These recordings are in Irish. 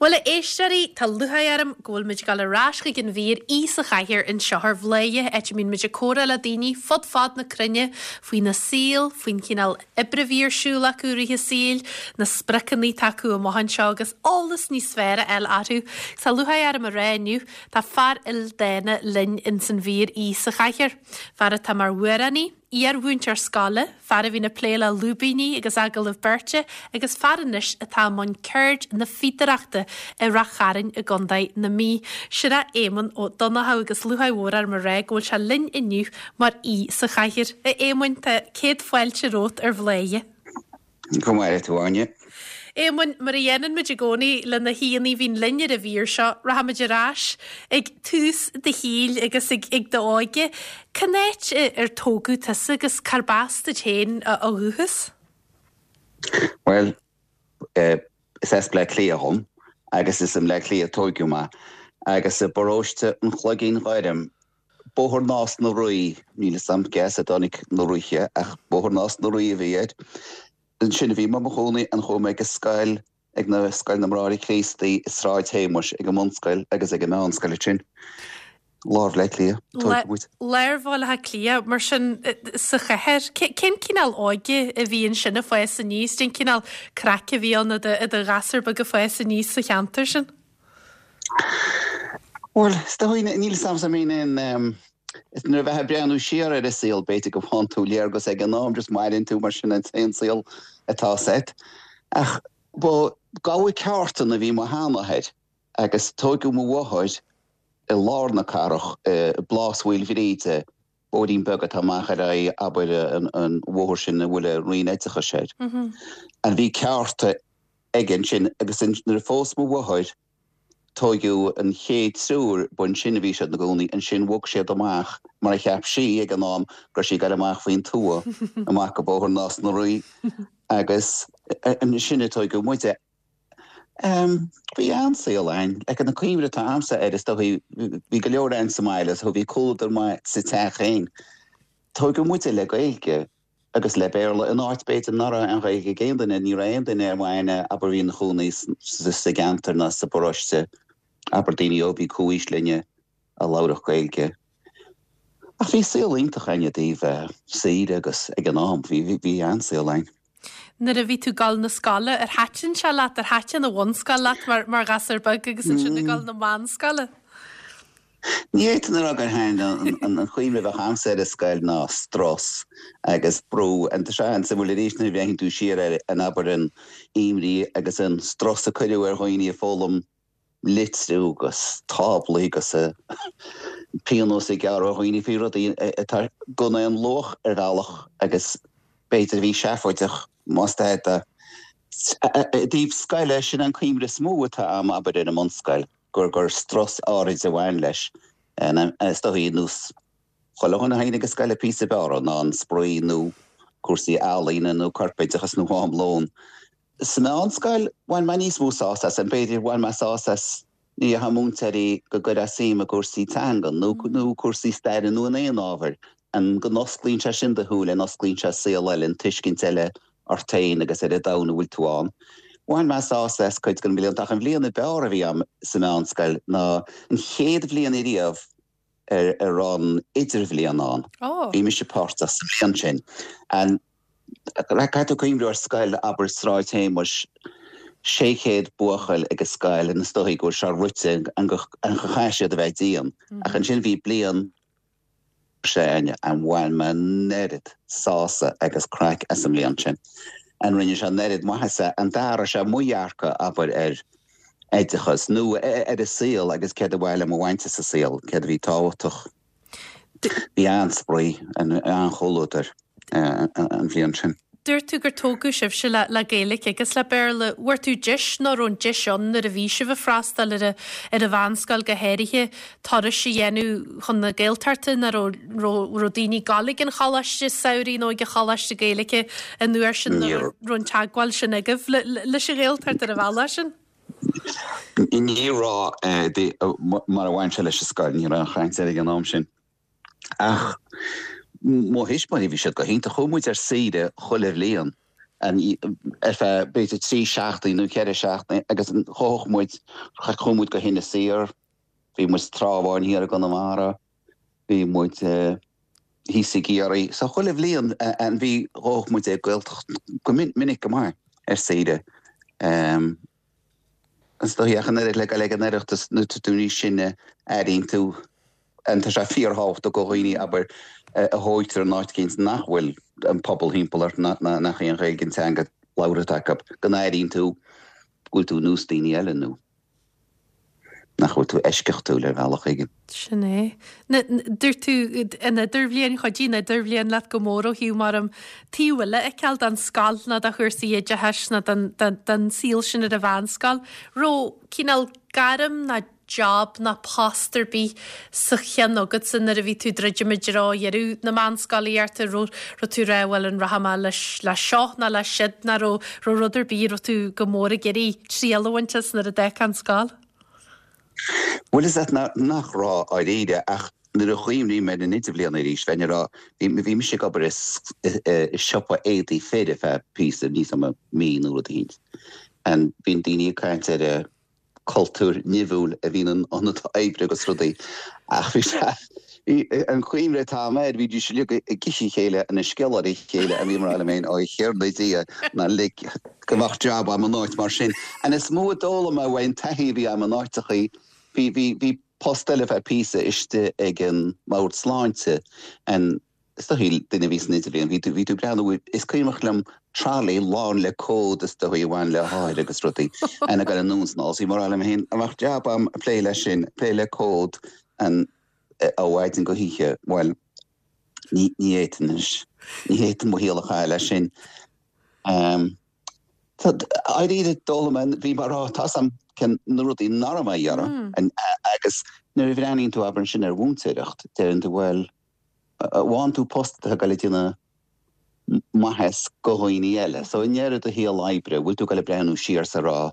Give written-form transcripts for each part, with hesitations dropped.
Bhuel, a éisteoirí, tá lúcháir orm go bhfuil muid ag dul ar ais chuig an mhír Aoi sa Chathaoir anseo ar Bhladhaire, áit a mbíonn muid ag comhrá le daoine fud fad na cruinne faoina saol, faoin chineál oibre a bhí ar siúl acu i rith a saoil, na spriocanna atá acu amach anseo agus eolas níos fearr a fháil orthu. Tá lúcháir orm a rá inniu, tá fear ildána linn ins an mhír Aoi sa Chathaoir. Fear atá mar amhránaí, iar-mhúinteoir scoile, fear a bhíonn ag plé le lúibíní agus agallaimh beirte agus fear anois atá i mbun ceird na fíodóireachta i Rath Chairn i gContae na Mí. Sin é Éamonn Ó Donnchadha agus lúcháir mhór orm a rá go bhfuil sé linn inniu mar aoi sa chathaoir. A Éamoinn, tá céad fáilte romhat ar Bhladhaire. Go maire tú, Áine. Éamoinn, mar a dhéanann muid i gcónaí le na haíonna a bhíonn linn ar an mhír seo, rachaimid ar ais ag tús do shaoil agus ag ag d'óige. Cén áit ar tógadh tusa agus cárb as duit féin ó dhúchas? Bhuel, is as Bleá Cliath dhom agus is i mBleá Cliath a tóigeadh mé agus i bparóiste an Chloiginn Ghoirm Bóthar Nás na Rí, níl 'fhios a'm cé as a dtáinig na Ríthe ach Bóthar Nás na Rí a bhí air. Ansin a bhí mé i mo chónaí and chuaigh mé ag an scoil, ag na, Scoil na mBráithre Críostaí i Sráid Shéamuis, ag an mbunscoil agus ag an meánscoil ansin. Lár Bhaile Átha Cliath, tógadh muid. Lár Bhaile Átha Cliath, mar sin, sa chathair. Cén cineál óige a bhí ansin ag fás aníos? Cén cineál craic a bhí ann i do ghasúr beag ag fás aníos sa cheantar sin? Bhuel, is dóigh, níl 'fhios a'm, I mean, in, is nuair a bheifeá ag breathnú siar ar an saol, b'fhéidir go bhfaigheann tú léargas ag an am, just maireann tú mar sin an t-aon saol atá agat. Ach ba gabha ceártan a bhí mo sheanathair agus tóigeadh mo mháthair i lár na cathrach, i bPlás Mhaoilbhríde, bóithrín beag atá amach ar aghaidh, abair, an bhóthar sin a bhfuil an Roinn Oideachais air. And bhí ceárta aige ansin agus nuair a phós mo mháthair tóigeadh an chéad triúr, b'ansin a bhí siad ina gcónaí, ansin bhog siad amach mar a cheap sí ag an am go raibh sí ag dul amach faoin tuath, amach go Bóthar Nás na Rí agus ansin a tóigeadh muide. Bhí an-saol a'inn, like an cuimhne atá a'msa air is dóigh bhí go leor a'inn sa mbaile so bhí comhluadar maith sa teach féin. Tóigeadh muide le Gaeilge. agus le Béarla in áit b'fhéidir nach raibh an Ghaeilge ag aon duine, ní raibh aon duine ar m'aithne abair a bhí ina chónaí sa gceantar ná sa bparóiste, abair daoine ó bhí comhaois linne a labharfadh Gaeilge. Ach bhí saol iontach a'inn i dtaobh saoire agus ag an am, bhí, bhí an-saol a'inn. Nuair a bhí tú ag dul na scoile, ar thaitin sé leat, ar thaitin an bhunscoil leat mar, mar ghasúr beag agus ansin ag dul na meánscoile? Ní fhéadfainn a rá gur thaitin an chuimhne a bheadh a'msa ar an scoil ná strus agus brú. And tá sé an-suimiúil arís nuair a bhreathnaíonn tú siar ar an abair an imní agus an strus a cuireadh ar dhaoine ag foghlaim litriú agus táblaí agus pionós a gearradh ar dhaoine faoi rudaí atá gan aon luach ar bhealach agus b'fhéidir a bhí seafóideach más ea. I dtaobh scoile, sin an cuimhne is mó atá a'm abair ar an mbunscoil. gur gur strus áirid a bhain leis. Is dóigh, ar nós chuile dhuine a théann ag an scoil píosa b'fhearr ná an spraoi nó cúrsaí ealaíne nó corpoideachas nó am lóin. Sa mheánscoil, bhain mé níos mó sásamh as, b'fhéidir, bhain mé sásamh as ní dhéarfadh múinteoirí go gcuirfeá suim i gcúrsaí teangan nó nó cúrsaí staire nó in aon ábhar, an go n-osclaíonn sé sin do shúile, an osclaíonn sé saol eile, an tuiscint eile ort féin agus ar an domhan a bhfuil tú ann. Bhain mé sásamh as cuid de na blianta ach an bhliain ab fhearr a bhí agam sa mheánscoil ná an chéad bhliain ariamh ar a raibh an idirbhliain ann. Bhí mise páirteach sa bhliain sin. And caithfidh tú cuimhniú ar scoil, abair Sráid Shéamuis, 600 buachaill ag an scoil and is dóigh go bhfuil sé rite an go chaithfidh siad a bheith dian. Ach ansin bhí bliain sin and bhain mé an oiread sásamh agus craic as an mbliain sin. And rinne sé an oiread maitheasa and d'athraigh sé mo dhearcadh, abair, ar oideachas nó ar an saol agus céard a ba mhaith liom a bhaint as an saol, céard a bhí tábhachtach. Bhí an-spraoi, an-chomhluadar. an bhliain sin. Dúirt tú gur tógadh sibhse le le Gaeilge agus le Béarla. Bhfuair tú deis nó raibh an deis ann nuair a bhí sibh ag freastal ar ar an mheánscoil go háirithe turais a dhéanamh chun na Gaeltachta nó raibh raibh raibh daoine ag dul ag an choláiste samhraidh nó ag an choláiste Gaeilge an uair sin nó raibh raibh an teagmháil sin agaibh le leis an Ghaeltacht ar an bhealach sin? Ní raibh mar a bhain sé leis an scoil, ní raibh aon chaint air ag an am sin. Ach mo thuismitheoirí, bhí siad go hiontach. Chuaigh muid ar saoire chuile bhliain. Ar feadh b'fhéidir 3 seachtaine nó 4 seachtaine agus ghabhadh muid, chuaigh muid go hInis Oírr, bhí muid sa Trá Bháin thiar i gConamara, bhí muid thíos i gCiarraí. So chuile bhliain an bhí, ghabhadh muid ag Gaeltacht go minic go maith ar saoire. Is dóigh ach an oiread le dul ag an Oireachtas nuair atá tú níos sine, airíonn tú, and tá sé fíorthábhachtach do dhaoine, abair, a thóigtear in áit éicint nach bhfuil an pobal thimpeall ort, nach í an Ghaeilge an teanga labhartha acu, go n-airíonn tú go bhfuil tú ar nós daoine eile nó nach bhfuil tú eisceachtúil ar bhealach éigin. Sin é. Dúirt tú an idirbhliain, chuidigh an idirbhliain leat go mór ó thaobh mar an taobh eile a fheiceáil den scoil nó de chúrsaí oideachais nó den saol sin ar an mheánscoil. Raibh cineál gairm ná job ná post ar bith sa cheann agatsa nuair a bhí tú ag druidim i dtreo dheireadh na meánscolaíochta, raibh raibh tú ag rá bhuel an rachaidh mé leis le seo nó le siúd nó raibh raibh rud ar bith a raibh tú go mór ag iarraidh triail a bhaint as nuair a d'fhágfá an scoil? Bhuel is ait nach raibh dáiríre ach nuair a chuimhním ar an idirbhliain arís bheinn ag rá bhí bhí mise ag obair i i siopa éadaí fir ar feadh píosa níl a fhios agam mí nó rud eicínt and bíonn daoine ag caint ar a cultúr nimhiúil a bhíonn in ionad oibre agus rudaí ach bhí sé, bhí an chuimhne atá agam air, bhídís uilig ag ithe a chéile and ag sciolladh ar a chéile and bhí mé ag rá liom féin, ó a Thiarna Dia, ná lig go mbeadh jab agam in áit mar sin. And is mó a d'fhoghlaim mé uaidh an taithí a bhí agam in áiteachaí, bhí, bhí, bhí post eile feadh píosa istigh ag an mBord Sláinte and Is dóigh, duine a bhí san idirbhliain, bhí tú, bhí tú ag breathnú, is cuimhneach liom trolley lán le comhad is dóigh a bhain le hothair agus rudaí, and ag dul anonn is anall. So bhí mé ag rá liom féin, dá mbeadh jab agam ag plé leis sin, ag plé le comhad and ó mhaidin go hoíche, bhuel, ní, ní fhéadfainn anois, ní fhéadfainn mo shaol a chaitheamh leis sin. Tá, dáiríre, d'fhoghlaim mé, bhí mé ag rá, tá 'fhios a'm cén na rudaí nach raibh mé a iarraidh, agus nuair a bhreathnaíonn tú, abair ansin ar mhúinteoireacht, deireann tú, bhuel, bhfaigheann tú post atá ag dul ag déanamh maitheas go dhaoine eile. So i ndeireadh do shaol oibre, bhfuil tú ag dul ag breathnú siar is ag rá,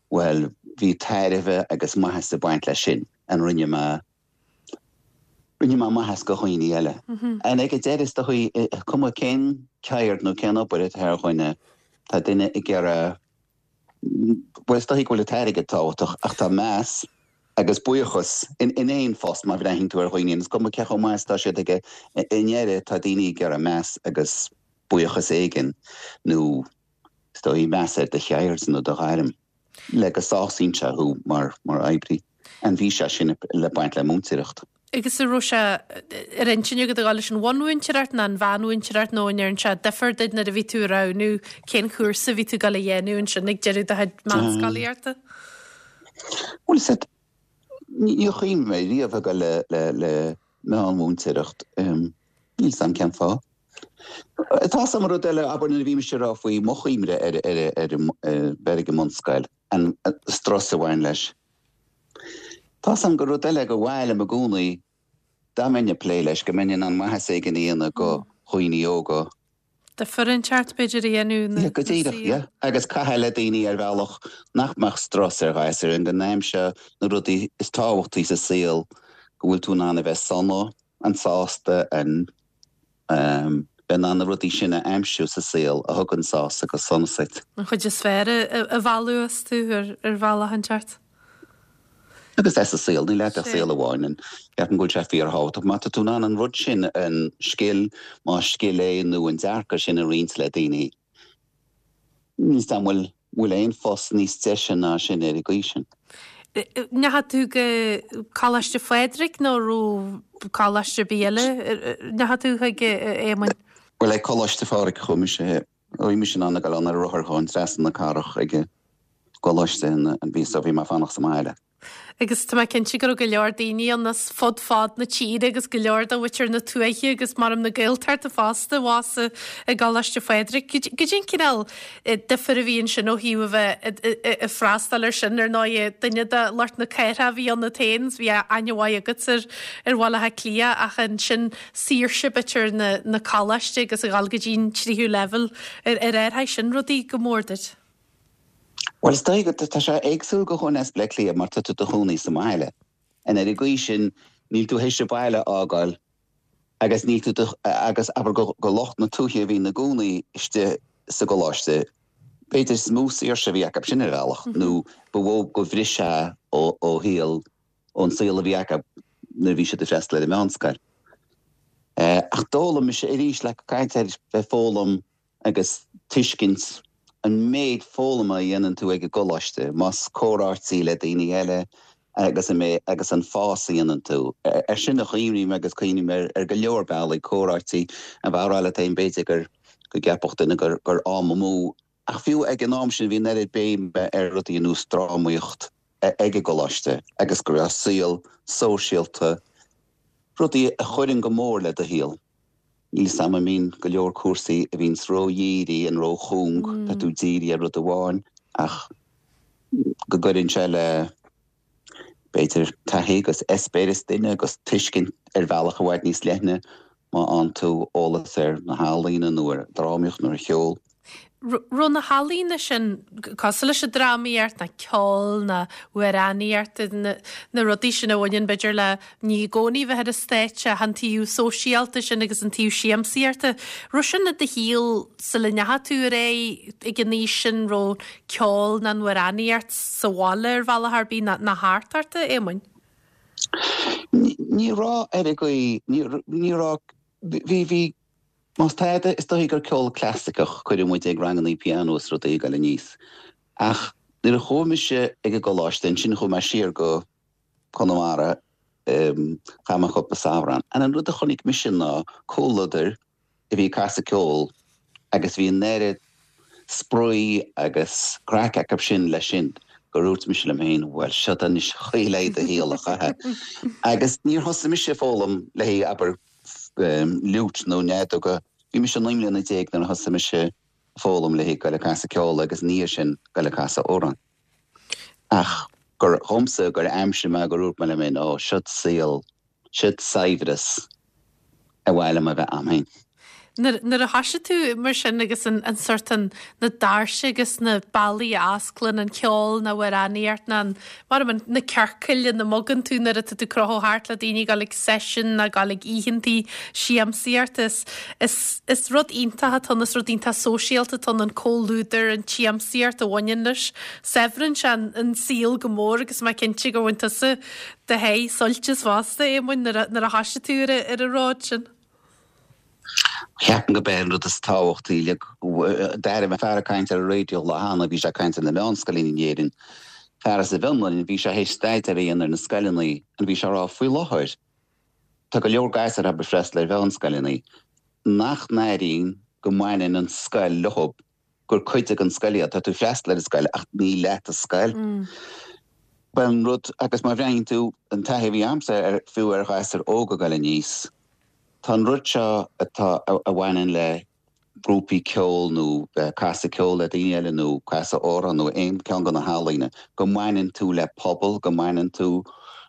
bhuel, bhí tairbhe agus maitheas ag baint leis sin, and rinne mé, rinne mé maitheas go dhaoine eile. And ag an deireadh is dóigh, cuma cén ceird nó cén obair atá ar dhuine, tá duine ag iarraidh, Bhuel, is dóigh go bhfuil an t-airgead tábhachtach, ach tá meas agus buíochas in aon phost má bhreathnaíonn tú ar dhaoine, is cuma cé chomh maith is atá siad aige, i ndeireadh tá daoine ag iarraidh meas agus buíochas éigin nó is dóigh meas ar do cheird nó do ghairm le go sásaíonn sé thú mar oibrí. And bhí sé sin le baint le múinteoireacht. Agus an raibh sé ar intinn agat a dhul leis an bhunmhúinteoireacht nó an mheánmhúinteoireacht nó an ndearn sé difear duit nuair a bhí tú ag roghnú cén cúrsa a bhí tú ag dul a dhéanamh ansin ag deireadh do chuid meánscolaíochta? Bhuel, is ait, níor chuimhnigh mé riamh ag dul le, le, le meánmhúinteoireacht. Níl 'fhios a'm cén fáth. Tá 'fhios a'm rud eile, abair nuair a bhí mise ag rá faoi mo chuimhne ar, ar, ar, ar bheith ag an mbunscoil, an strus a bhain leis. Tá 'fhios a'm gur rud eile gur mhaith liom i gcónaí, dá mbeinn ag plé leis, go mbeinn in ann maitheas éigin a dhéanamh go dhaoine óga. Difear inteacht, b'fhéidir, a dhéanamh ina Yeah, go díreach, yeah. Agus caitheamh le daoine ar bhealach nach mbeadh strus ar ghasúir, and go n-aimseodh na rudaí is tábhachtaí sa saol, go bhfuil tú in ann a bheith sona, and sásta, and. bheith in ann na rudaí sin a aimsiú sa saol a thugann sásamh agus sonas duit. An chuid is fearr a mhealladh astu ar bhealach inteacht. Agus é sa saol, níl agat ach saol amháin and ceapaim go bhfuil sé fíorthábhachtach má tá tú in ann an rud sin, an scil, más scil é nó an dearcadh sin a roinnt le daoine, Níl 'fhios a'm bhfuil bhfuil aon phost níos deise ná sin ar an gcaoi sin. Ndeachaigh tú go Coláiste Phádraig nó raibh coláiste ar bith eile ndeachaigh tú chuig, a Éamoinn? Bhuel, ag Coláiste Phádraig a chuaigh mise. Bhí mise in ann a ghoil ann ar rothar chugainn trasna na cathrach ag an gcoláiste and bhí so bhí mé ag fanacht sa mbaile. Agus tá mé cinnte go raibh go leor daoine ann as fud fad na tíre agus go leor de mhuintir na tuaithe agus maram na Gaeltachta fosta abhus i gColáiste Phádraig. Goidé an cineál difir a bhí ansin ó thaobh a bheith ag freastal air sin. Ar ndóigh, duine de lucht na cathrach a bhí ionat féin, bhí aithne mhaith agat ar ar Bhaile Átha Cliath ach ansin saoirse b'fhéidir na na coláiste agus a dhul go dtí an tríú leibhéal ar athraigh sin rudaí go mór duit? Bhuel, is dóigh go, tá sé éagsúil go dhuine as Bleá Cliath mar tá tú i do chónaí sa mbaile. And ar an gcaoi sin, níl tú théis an baile a fhágáil agus níl tú, agus abair go, go lucht na tuaithe a bhí ina gcónaí istigh. sa gcoláiste, b'fhéidir is mó saoirse a bhí acu sin ar bhealach nó ba mhó go bhriseadh ó shaol, ón saol a bhí acu nuair a bhí siad ag freastal ar an meánscoil. Ach d'fhoghlaim mise arís, le caint ar bheith foghlaim agus tuiscint an méid foghlama a dhéanann tú ag an gcoláiste, más comhráití le daoine eile agus an méid agus an fás a dhéanann tú. Ar sin a chuimhním agus cuimhním ar go leor bealaí, comhráití a bheith á rá leat féin b'fhéidir gur go gceapfadh duine gur gur am amú ach fiú ag an am sin bhí an oiread béime ar rudaí ar nós drámaíocht ag an gcoláiste agus go raibh saol sóisialta, rudaí a chuireann go mór le do shaol. Níl 's a'm an mbíonn go leor cúrsaí a bhíonns ró-dhírithe an ró-chúng, tá tú dírithe ar rud amháin ach go gcuireann sé le b'fhéidir taithí agus eispéireas duine agus tuiscint ar bhealach i bhfad níos leithne má fhaigheann tú eolas ar na healaíona nó ar drámaíocht nó ar cheol. Raibh na healaíona sin cosúil leis an drámaíocht, ná ceol, ná amhránaíocht, na rudaí sin a bhaineann b'fhéidir le ní i gcónaí bheith ar an stáitse ach an taobh sóisialta sin agus an taobh siamsaíochta. Raibh sin i do shaol sula ndeachaigh tú ar aghaidh ag an aois sin, raibh ceol ná an amhránaíocht sa bhaile ar bhealach ar bith ná thart ort, a Éamoinn? Ní raibh ar an gcaoi, ní raibh, bhí, bhí Más tada, is dóichí gur ceol clasaiceach cuireadh muid ag rangannaí pianó is rudaí ag goil aníos. Ach nuair a chuaigh mise ag an gcoláiste, ansin chuaigh mé siar go Conamara, chaith mé cúpla samhradh ann. And an rud a chonaic mise ná comhluadar a bhí ag casadh ceol agus bhí an oiread spraoi agus craic acu sin leis sin gur dhúirt mise liom féin, bhuel, seod anois an chaoi le do shaol a chaitheamh. Agus níor thosaigh mise ag foghlaim le haghaidh, abair, fhliúit nó fheadóg. Bhí mise 19 mbliana nuair a thosaigh mise ag foghlaim le haghaidh goil ag casadh ceoil agus ina dhiaidh sin goil ag casadh amhrán. Ach gur dhomsa gur aimsigh mé gur dhúirt mé liom féin, ó, seod saol, seod saibhreas ar mhaith liom a bheith a'm féin. Nuair a thoisigh tú mar sin agus an sort an, na doirse agus na bealaí a osclaíonn an ceol ná amhránaíocht ná an, mar an, na ciorcail ina mbogann tú nuair atá tú ag crochadh thart le daoine ag dul ag seisiún ná ag dul ag oícheantaí siamsaíochta is, is, is rud iontach atá ann, is rud iontach sóisialta atá ann, an comhluadar, an tsiamsaíocht a bhaineann leis. Saibhríonn sé an, an saol go mór agus mé cinnte gur bhain tusa do sháith suilt as fosta, Éamoinn, nuair a, nuair a thoisigh tú ar, ar an ród sin. Ceapaim gurb é an rud is tábhachtaí d'airigh mé fear ag caint ar an raidió lá cheana, bhí sé ag caint ar na meánscoileanna in Éirinn, fear as an bhFionlainn, bhí sé théis staidéar a dhéanamh ar na scoileanna and bhí sé ag rá faoi láthair tá go leor gasúir ag freastal ar mheánscoileanna nach n-airíonn go mbaineann an scoil leo. gur cuid den scoil iad. Tá tú ag freastal ar an scoil ach ní leat an scoil. Bhuel an rud, agus má bhreathnaíonn tú an taithí a bhí a'msa ar, fiú ar ghasúir óga ag goil aníos, tá an rud seo atá, a bhaineann le grúpaí ceoil nó bheith ag casadh ceoil le daoine eile nó casadh amhrán nó aon ceann de na healaíona, go mbaineann tú le pobal, go mbaineann tú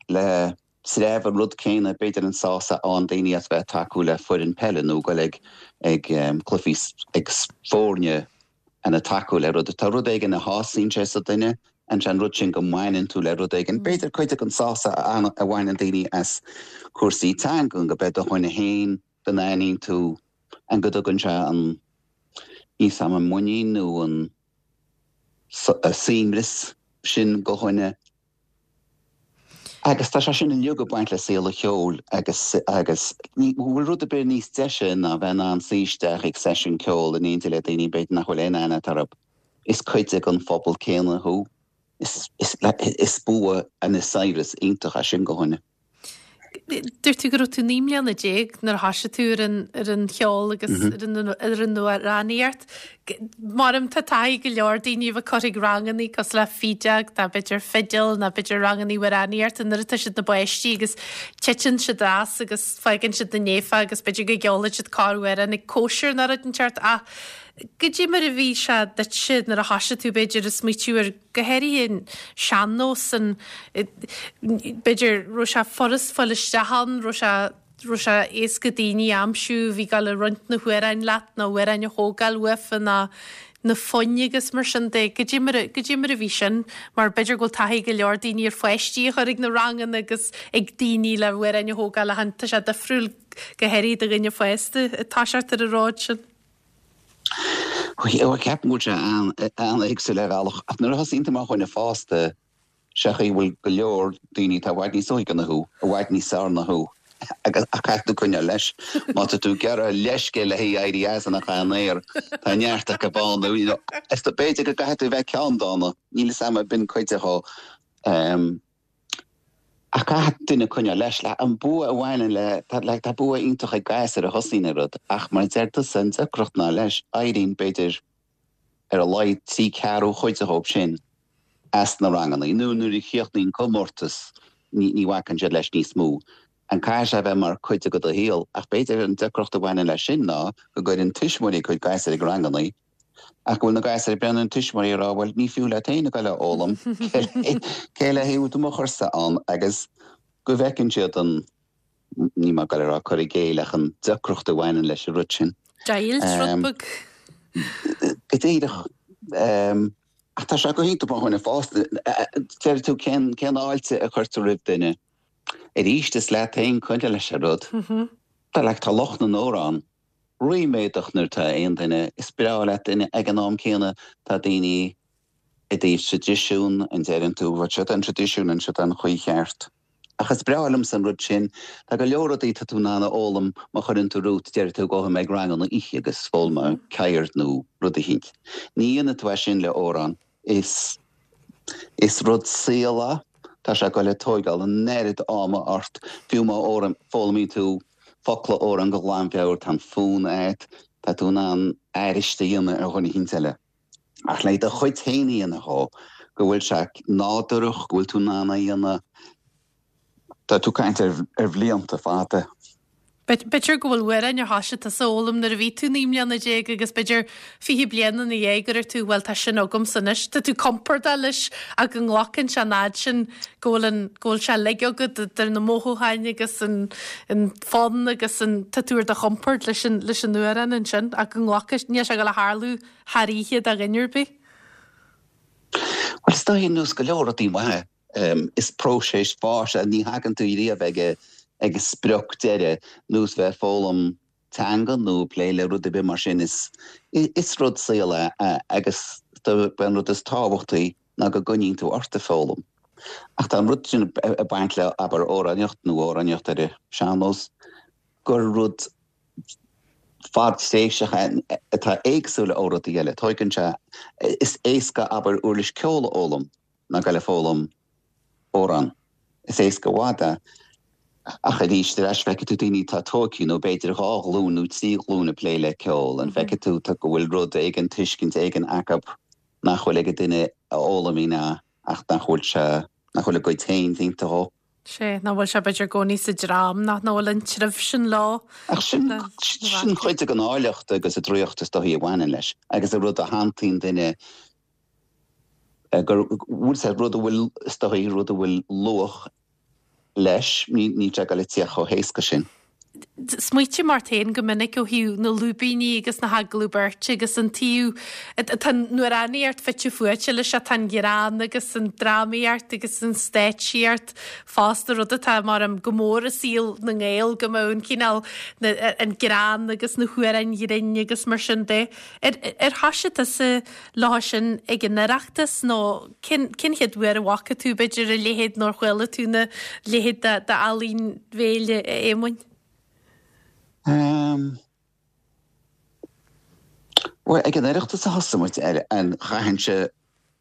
le. sreabh an rud céanna, b'fhéidir an sásamh a fhaigheann daoine as bheith ag tacú le foireann peile nó goil ag ag cluichí ag foirne and ag tacú le rud. Tá rud éigin a shásaíonn sé sa duine and sé an rud sin go mbaineann tú le rud éigin. B'fhéidir cuid den sásamh a bhaineann daoine as cúrsaí teangan go beidh do dhuine féin, go n-aithníonn tú and go dtugann sé an, níl 's a'm an muinín nó an suaimhneas sin go dhuine. Agus tá sé sin uilig ag baint le saol an cheoil agus agus ní bhfuil rud ar bith níos deise ná bheith in ann suí isteach ag seisiún ceoil in éindí le daoine b'fhéidir nach bhfuil aon aithne agat orthu. Is cuid den phobal céanna thú. Is is is bua and is saibhreas iontach é sin go dhuine. Dúirt tú go raibh tú 19 mbliana nuair a thoisigh tú ar an ar an cheol agus ar an ar an amhránaíocht. Maram tá taithí go leor daoine a bheith curtha ag rangannaí cosúil le fídeog nó b'fhéidir fidil nó b'fhéidir rangannaí amhránaíochta nuair atá siad ina bpáistí agus titeann siad as agus fágann siad na néafa agus b'fhéidir go gceolfaidh siad corr-amhrán ag cóisir nó rud inteacht ach goidé mar a bhí sé duitse nuair a thoisigh tú b'fhéidir ag smaoitiú ar go háirithe an sean-nós, an, b'fhéidir, raibh sé furast fáil isteach ann, raibh sé, raibh sé éasca daoine a aimsiú a bhí ag dul ag roinnt na hamhráin leat nó amhráin a thógáil uafa ná na foinn agus mar sin de. Goidé mar a, goidé mar a bhí sin? Mar b'fhéidir go bhfuil taithí ag go leor daoine ar pháistí a chur ag na ranganna agus ag daoine le hamhráin a thógáil ach tá sé difriúil go háirithe do dhuine fásta ag toiseacht ar an ród sin. Ceapaim go bhfuil sé an-éagsúil ar bhealach, ach nuair a thosaíonn tú mar dhuine fásta, sé an chaoi a bhfuil go leor daoine atá i bhfad níos óige ná thú, i bhfad níos fearr ná thú, agus ach caithfidh tú coinneáil leis. Má tá tú ag iarraidh leithscéal le haghaidh éirí as an chan aer, tá neart acu ann, you know, is b'fhéidir go gcaithfidh tú a bheith ceanndána, níl fhios a'm, b'in cuid de dhó. Ach caithfidh duine coinneáil leis. Like, an bua a bhaineann le, tá, like, tá bua iontach ag gasúir a thosaíonn ar rud, ach mar a deir tusa, an deacracht ná leis, éiríonn, b'fhéidir, ar a laghad trí ceathrú chuid dhóibh sin as na ranganna, nó nuair a chríochnaíonn comórtas, ní, ní bhacann siad leis níos mó. An caithfidh sé a bheith mar cuid de do shaol, ach b'fhéidir an deacracht a bhaineann leis sin ná go gcuireann tuismitheoirí a gcuid gasúir ag ranganna, Ach go bhfuil na gasúir ag breathnú ar na tuismitheoirí ag rá, bhuel, ní fiú leat féin a ghoil a fhoghlaim, cé le haghaidh tú mo chursa ann agus go bhfeiceann siad an, níl mé ag goil a rá cur i gcéill ach an deacracht a bhaineann leis an rud sin. Deighilt, rud beag. Go díreach. Ach tá sé go hiontach mar dhuine fásta. Deir tú cén cén fháilte a chuirtear roimh duine. Arís is leat féin coinneáil leis an rud. Tá like tá lucht na n-amhrán. ríméadach nuair atá aon duine, is breá leat duine, ag an am céanna tá daoine i dtaobh traidisiún, an deireann tú, bhuel seo an traidisiún an seo an chaoi cheart. Ach is breá liomsa an rud sin, tá go leor rudaí tá tú in ann a fhoghlaim má chuireann tú romhat, deir tú gabhfaidh mé ag ranganna oíche agus foghlaimeoidh ceird nó rud eicínt. Ní dhéanfaidh tú é sin le amhrán. Is is rud saoil é. Tá sé ag goil ag tóigeáil an oiread ama ort, fiú má foghlaimíonn tú focla amhráin go glanmheabhair, tá an fonn agat, tá tú in ann aithris a dhéanamh ar dhuine eicínt eile. Ach le do chuid féin a dhéanamh dhó, go bhfuil sé nádúrach, go bhfuil tú in ann é a dhéanamh, Tá tú ag caint ar bhlianta fada. B'fhéidir go bhfuil amhráin ar thoisigh tusa a fhoghlaim nuair a bhí tú 19 mbliana agus b'fhéidir 20 bliain ina dhiaidh go raibh tú, bhuel tá sin agamsa anois. Tá tú compordach leis ach go nglacann sé an fhad sin go bhfuil an, go bhfuil sé uilig agat idir na mothúcháin agus an, an fonn agus an, tá tú ar do chompord leis an, leis an amhrán ansin ach go nglacfaidh, níl sé ag dul a tharlú thar oíche do dhuine ar bith. Bhuel is dóigh ar nós go leor rudaí maithe. Is próiseas fáis é, ní thagann tú riamh ag ag an sprioc deiridh, nós bheith ag foghlaim teanga nó ag plé le rud ar bith mar sin. Is is rud saoil é agus an rud is tábhachtaí ná go gcoinníonn tú ort ag foghlaim. Ach tá an rud sin ag baint le, abair, amhránaíocht nó amhránaíocht ar an sean-nós, gur rud fadtréimhseach é atá éagsúil ó rudaí eile. Tóigeann sé, is éasca, abair, uirlis ceoil a fhoghlaim. ná goil ag foghlaim amhrán. Is éasca i bhfad é. Ach arís, ar ais feicfidh tú daoine atá tógtha nó b'fhéidir dhá ghlúin nó trí ghlúin ag plé le ceol, an bhfeicfidh tú go bhfuil rud éigin, tuiscint éigin acu nach bhfuil ag an duine a fhoghlaimíonn é ach nach bhfuil sé, nach bhfuil a gcuid féin déanta dhó. Sea, nach bhfuil sé b'fhéidir i gcónaí sa dream, nach bhfuil an treibh sin leo. Ach sin, sin cuid den áilleacht agus an draíocht is dóichí a bhaineann leis agus an rud a shantaíonn duine gur bhfuil sé rud a bhfuil, is dóichí, rud a bhfuil luach leis, níl sé ag dul ag tíocht chomh héasca sin. Smaoitím ort féin go minic ó thaobh na lúibíní agus na hagallamh beirte agus an taobh, tá an amhránaíocht fite fuaite leis seo, tá an greann agus an drámaíocht agus an stáitsíocht fosta, rud atá mar go mór i saol na nGael go mbeadh an cineál, an greann agus na hamhráin ghrinn agus mar sin de. Ar thoisigh tusa leo sin ag an Oireachtas nó cén chéad uair a bhfaca tú b'fhéidir a leithéid nó ar chuala tú a leithéid d'ealaín bhéil a Éamoinn? Bhuel, ag an Oireachtas a thosaigh muid air and chaithfinnse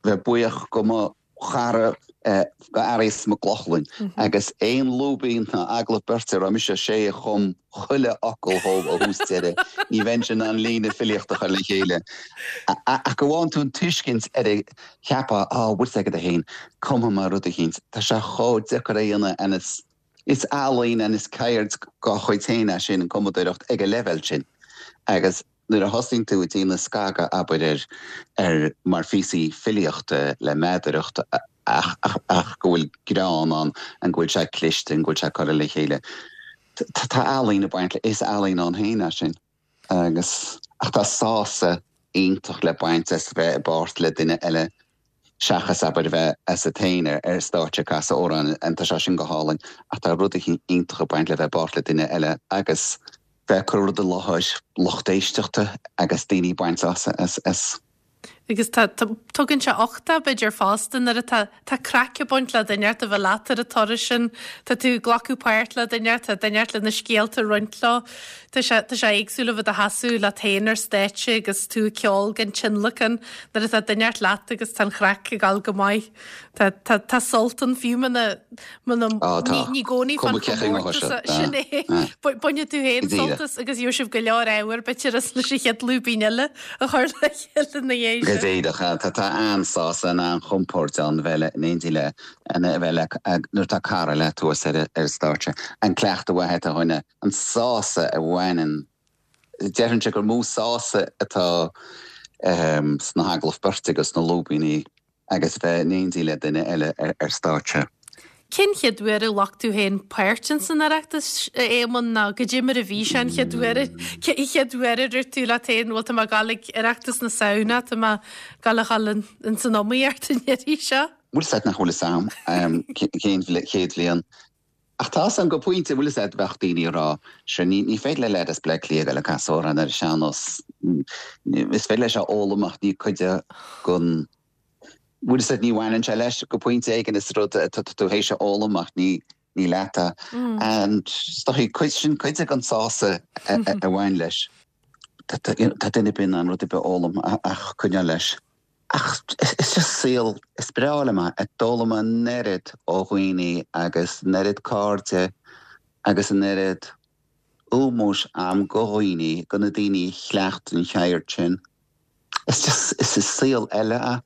bheith buíoch go mo chara go Fhearghas Mac Lochlainn agus aon lúibín ná agallamh beirte a raibh mise, sé a chum chuile fhocal dhó ó thús deireadh. Ní bheinnse in ann líne filíochta a chur le chéile. Ach go bhfaigheann tú an tuiscint ar a cheapadh, á, bhfuil 's agat féin, cumfaidh mé rud eicínt. Tá sé chomh deacair a dhéanamh and is is ealaín and is ceird dá chuid féin é sin, an cumadóireacht, ag an leibhéal sin. Agus. Nuair a thosaíonn tú ag déanamh scagadh, abair, ar, ar, mar phíosaí filíochta le meadaracht ach, ach, ach go bhfuil greann ann, an go bhfuil sé cliste, an go bhfuil sé curtha le chéile. Tá, tá ealaín ag baint le, is ealaín ann féin é sin. Agus, ach tá sásamh iontach le baint as bheith i bpáirt le duine eile seachas, abair, a bheith asat féin ar, ar stáitse ag casadh amhráin, and tá sé sin go hálainn, ach tá rud eicínt iontach ag baint le bheith i bpáirt le duine eile agus. bheith ag cur rud i láthair lucht éisteachta agus daoine ag baint sásamh as. Agus tá, tugann sé uchtach b'fhéidir fosta nuair atá, tá craic ag baint le duine inteacht a bheith leat ar an turas sin, tá tú ag glacadh páirt le duine inteacht, tá duine inteacht le na scéalta a roinnt leo. Tá sé, tá sé éagsúil a bheith i do sheasamh leat féin ar stáitse agus tú ag ceol gan tionlacan nuair atá duine inteacht leat agus tá an chraic ag dul go maith. Tá, tá, tá sult ann fiú muna, muna, Á, tá. ní, ní i gcónaí fán Cuma cé chaoi ngabhfaidh chomórtas sé. sin é. Ah. Bainfidh tú féin Go díreach. sult as agus gheobhaidh sibh go leor ábhair b'fhéidir as leis an chéad lúibín eile a chur le chéile ina dhiaidh Go sin. díreach. Tá, tá an-sásamh, an-chompord ann bheith le, in éindí le, a bheith le, nuair atá cara leat thuas ar, ar an stáitse. An cleachtadh mhaith atá dhuine, an sásamh a bhaineann Déarfainnse gur mó sásamh atá sna hagallaimh beirte agus sna lúibíní agus bheith in éindí le duine eile ar stáitse. Cén chéad uair a ghlac tú féin páirt ins an Oireachtas, a Éamoinn, nó goidé mar a bhí sé an chéad uair, an chéad uair a dúirt tú leat féin, bhuel tá mé ag dul ag Oireachtas na Samhna, tá mé ag dul a dhul ins an iomaíocht an iarraidh seo? Bhfuil fhios agat nach bhfuil fhios a'm cén chéad bhliain. Ach tá fhios a'm go pointe, bhfuil fhios agat, bheadh daoine ag rá, sure ní ní féidir le leaid as Bleá Cliath a ghoil ag casadh amhrán ar an sean-nós, is féidir leis a fhoghlaim ach ní cuid de gon, bhfuil fhios agat, ní bhaineann sé leis go pointe éigin, is rud atá tú théis a fhoghlaim ach ní ní leat é. And is dóigh cuid sin cuid de gon sásamh a bhain leis. Tá duine ar bith in ann rud ar bith a fhoghlaim ach coinneáil leis. Ach is just saol, is breá liom é. D'fhoghlaim mé an oiread ó dhaoine agus an oiread cairde agus an oiread ómóis a'm go dhaoine, go na daoine a chleacht an cheird sin. Is just, is saol eile é.